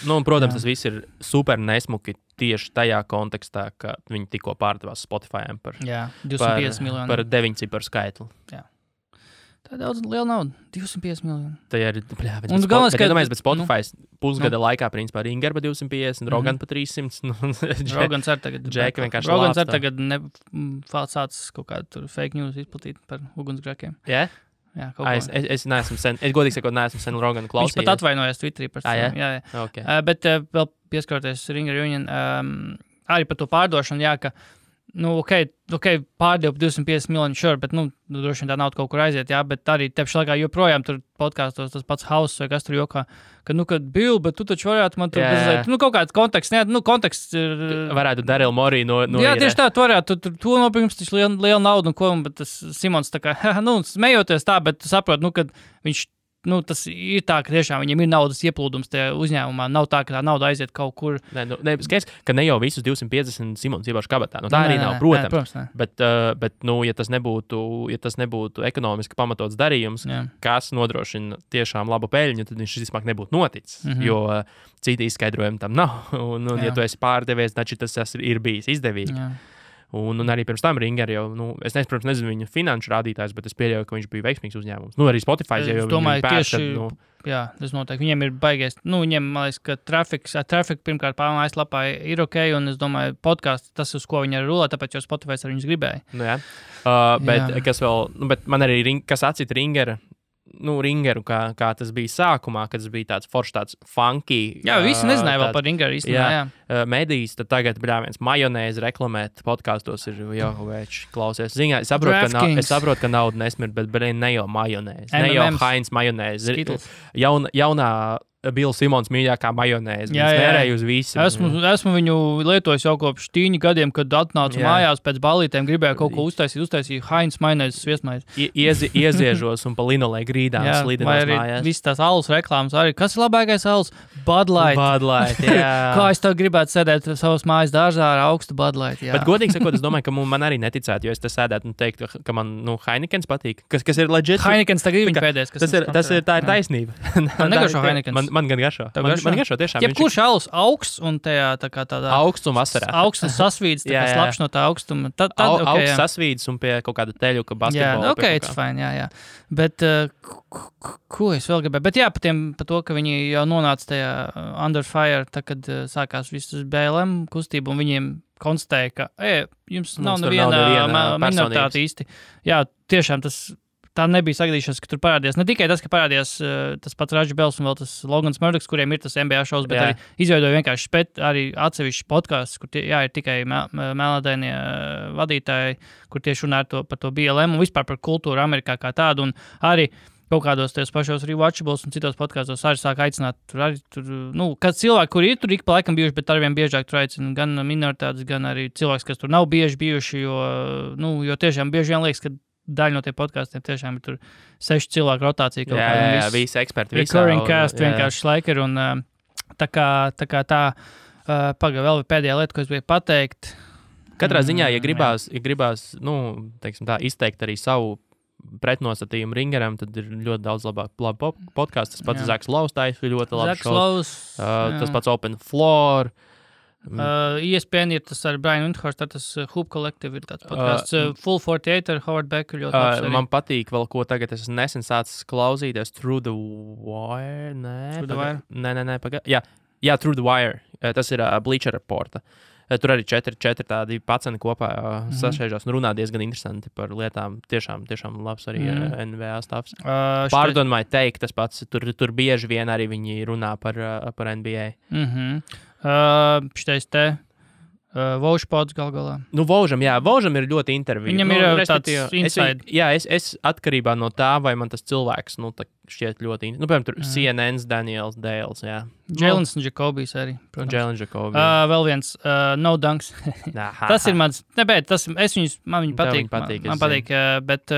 Un, protams, tas viss ir super nesmuki tieši tajā kontekstā, ka viņi tikko pārdevās Spotify par 250 miljonu. Par 9 ciparu skaitli. Jā. Tā ir daudz liela nauda. 250 miljoni. Tā ir, bet Spotify pusgada laikā, principā, Ringer pa 250, Rogan pa 300. Rogans ar tagad. Džeka vienkārši Rogans ar tagad sācis kaut kādu fake news izplatīt par ugunsgrēkiem. Jā? Jā, kaut ko. Es neesmu sen, godīgi sakot, neesmu sen Roganu klausījies. Viņš pat atvainojās Twitterī par to. Jā. Okay. Bet vēl pieskaroties Ringer Union, arī par to pārdošanu, ka pārdev 250 miljonu šur, bet, droši vien tā nauda kaut kur aiziet, bet arī tepši laikā joprojām tur podkāstos tas pats House vai kas tur jokā, kad Bill, bet tu taču varētu man tur bezliet, kaut kāds konteksts, konteksts ir... Varētu Daryl Morey no jā, tieši tā, tu varētu, tu nopirms taču liela nauda, bet tas Simons tā kā, smejoties tā, bet tu saprot, kad viņš... tas ir tā, ka tiešām viņiem ir naudas ieplūdums tajā uzņēmumā. Nav tā, ka tā nauda aiziet kaut kur. Skaidrs, ka ne jau visus 250 Simons ievaš kabatā. Tā arī nav, protams. Bet, ja tas nebūtu ekonomiski pamatots darījums, kas nodrošina tiešām labu peļņu, tad viņš vismaz nebūtu noticis. Jo citi izskaidrojumi tam nav. Ja tu esi pārdevies, tad tas ir bijis izdevīgi. Jā. Un arī pirms tam Ringer jau, es nezinu viņu finanšu rādītājs, bet es pieļauju, ka viņš bija veiksmīgs uzņēmums. Arī Spotify jau domāju, tieši, tas noteikti. Viņiem ir baigais, viņiem, man liekas, ka traffic pirmkārt mājaslapā ir ok, un es domāju, podcasts, tas, uz ko viņi arī rulē, tāpēc jau Spotify ar viņus gribēja. Bet kas vēl, bet man arī, kas atcita Ringeru, kā tas bija sākumā, kad tas bija tāds foršs, tāds funky. Jā, visi nezināja vēl par Ringeru īstenībā. Medijas, tad tagad viens majonēzi reklamēt podkastos ir jau veči klausies. Ziņā, es saprotu, ka nauda nesmird, bet ne jau majonēzi, ne jau Heinz majonēzi. Jaunā Bills Simons mīļākā majonēze. Viņš mērēja uz visu. Esmu viņu lietojis jau kopš 10 gadiem, kad atnācu mājās pēc balītēm, gribēju kaut ko uztaisīt Heinz majonēzes sviestmaizi. Ieziežos un pa linolē grīdām slidinās mājās. Viss tās alus reklāmas arī. Kas ir labākais alus? Bud Light, jā. Kā es tev gribētu sēdēt savas mājas dārzā ar augstu Bud Light, jā. Bet godīgi sakot, es domāju, ka man arī neticētu, jo es te sēdētu un teiktu, ka man, Heinekens patīk. Kas ir legit? Heinekens tagad ir viņa pēdējais. Tā ir taisnība. Man negaršo Heinekens. Man gan garšo. Man garšo tiešām. Jebkurš alus augsts un tādā augsts un vasarā. Augsts un sasvīds, tā kā slapš no tā augstuma. Augsts sasvīds un pie kaut kāda teļu, ka basketbola. Jā, it's fine, jā. Bet, ko es vēl gribēju? Bet jā, par to, ka viņi jau nonāca tajā Under Fire, tā, kad sākās viss BLM kustība, un viņiem konstatēja, ka jums nav neviena minoritāte īsti. Jā, tiešām tā nebija sagadīšanās, ka tur parādījās. Ne tikai tas, ka parādījās tas pats Raģis Bels un vēl tas Logans Murdochs, kuriem ir tas NBA šovs, bet arī izveidoja vienkārši arī atsevišķi podcasts, kur ir tikai melnādainie vadītāji, kur tieši runā par to BLM un vispār par kultūru Amerikā kā tādu. Un arī kaut kādos tajos pašos Rewatchables un citos podkastos arī sāk aicināt, kad cilvēki, kuri ir tur ik pa laikam bijuši, bet arvien biežāk tur aicina gan minoritātes, gan arī cilvēks, kas tur nav bieži bijuši, jo tiešām bieži vien liekas, ka daļa no tiem podkastiem tiešām ir tur 6 cilvēku rotācija. Jā, visi eksperti. Recurring cast vienkārši laikir. Un tā kā pagaidām vēl pēdējā lieta, ko es gribēju pateikt. Katrā ziņā, ja gribās teiksim tā, izteikt arī savu pretnostatījumu Ringeram, tad ir ļoti daudz labu podcastu. Tas pats Zaks Lows, tā ir ļoti labi šovs. Tas pats Open Floor. ESPN ir tas ar Brian Windhorst, tas Hoop Collective ir tāds podcasts. Full 48 ar Howard Becker ļoti labs arī. Man patīk vēl, ko tagad es nesen sācis klausīties Through the Wire. Nē, Jā, Through the Wire. Tas ir Bleacher Reporta. Tur arī 4 tādi paceni kopā sašēžās un runā diezgan interesanti par lietām. Tiešām labs arī NBA stāvs. Pardon my take, tas pats. Tur bieži vien arī viņi runā par NBA. Šitais te Vaužpods galā. Vaužam ir ļoti intervija. Viņam ir tāds inside. Es atkarībā no tā, vai man tas cilvēks, šķiet ļoti piemēram, tur CNN's Daniels Dales, jā. Jēlens un Jacobijs arī. Jēlens Jacobijs. Vēl viens, No Dunks. Tas ir mans, man viņi patīk. Man patīk, bet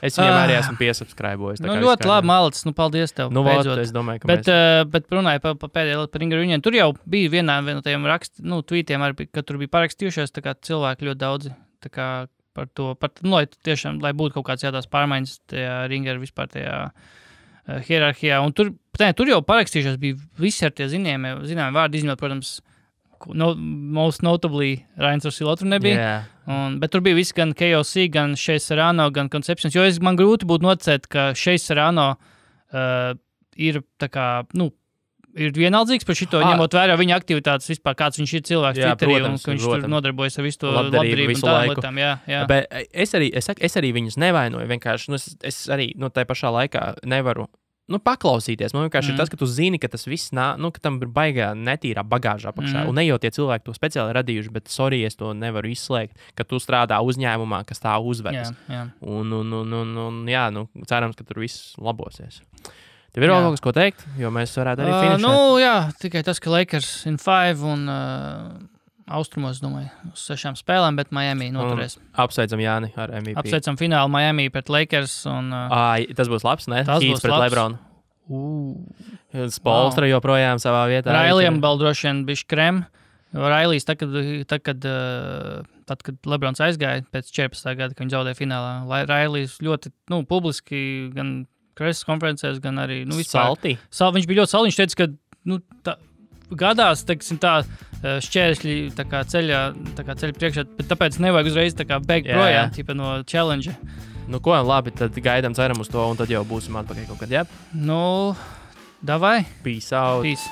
Es viņam arī esmu piesubscribojis. Ļoti labi, Malicis. Paldies tev. Es domāju, ka bet runāju par pēdējo par Ringa Reunion. Tur jau bija vienā no tajiem tweetiem, ka tur bija parakstījušies cilvēki ļoti daudzi. Par to, lai būtu kaut kāds jādās pārmaiņas tajā Ringa vispār tajā hierarhijā. Un tur jau parakstījušies bija visi ar tie zināmi vārdi izņemot, protams, most notably Rains Rosillo tur nebija. Bet tur bija visi gan KOC, gan Shea Serrano, gan Conceptions. Jo man grūti būtu nocēt, ka Shea Serrano ir ir vienaldzīgs par šito, ņemot vērā viņa aktivitātes vispār, kāds viņš ir cilvēks Twitterī, un ka viņš tur nodarbojas ar visu to labdarību un tādām lietām. Jā. Bet es arī viņus nevainoju. Vienkārši, es arī tai pašā laikā nevaru paklausīties. Man vienkārši ir tas, ka tu zini, ka tas viss ka tam ir baigā netīrā bagāžā apakšā. Un ne jau tie cilvēki to speciāli radījuši, bet sorry, es to nevaru izslēgt, ka tu strādā uzņēmumā, kas tā uzvedas. Jā. Un cerams, ka tur viss labosies. Tev ir vēl kaut kas, ko teikt, jo mēs varētu arī finišēt? Tikai tas, ka Lakers in 5 un austrumos, domāju, uz 6 spēlēm, bet Miami noturēs. Apsveicam Jāni ar MVP. Apsveicam finālu Miami pret Lakers. Tas būs labs, ne? Tas būs pret LeBronu. Spolstra joprojām savā vietā. Railijam vēl droši vien bišķi krem. Railijs, kad LeBrons aizgāja pēc 14. gada, kad viņi zaudēja finālā, Railijs ļoti publiski gan preses konferencēs, gan arī vispār. Saltī? Viņš bija ļoti salti. Viņš teica, ka gadās, šķēršļi ceļa priekšā, bet tāpēc nevajag uzreiz beigt projām no challenge. Ko labi, tad gaidām, ceram uz to, un tad jau būsim atpakaļ kaut kad, jā? Davai. Peace out. Peace.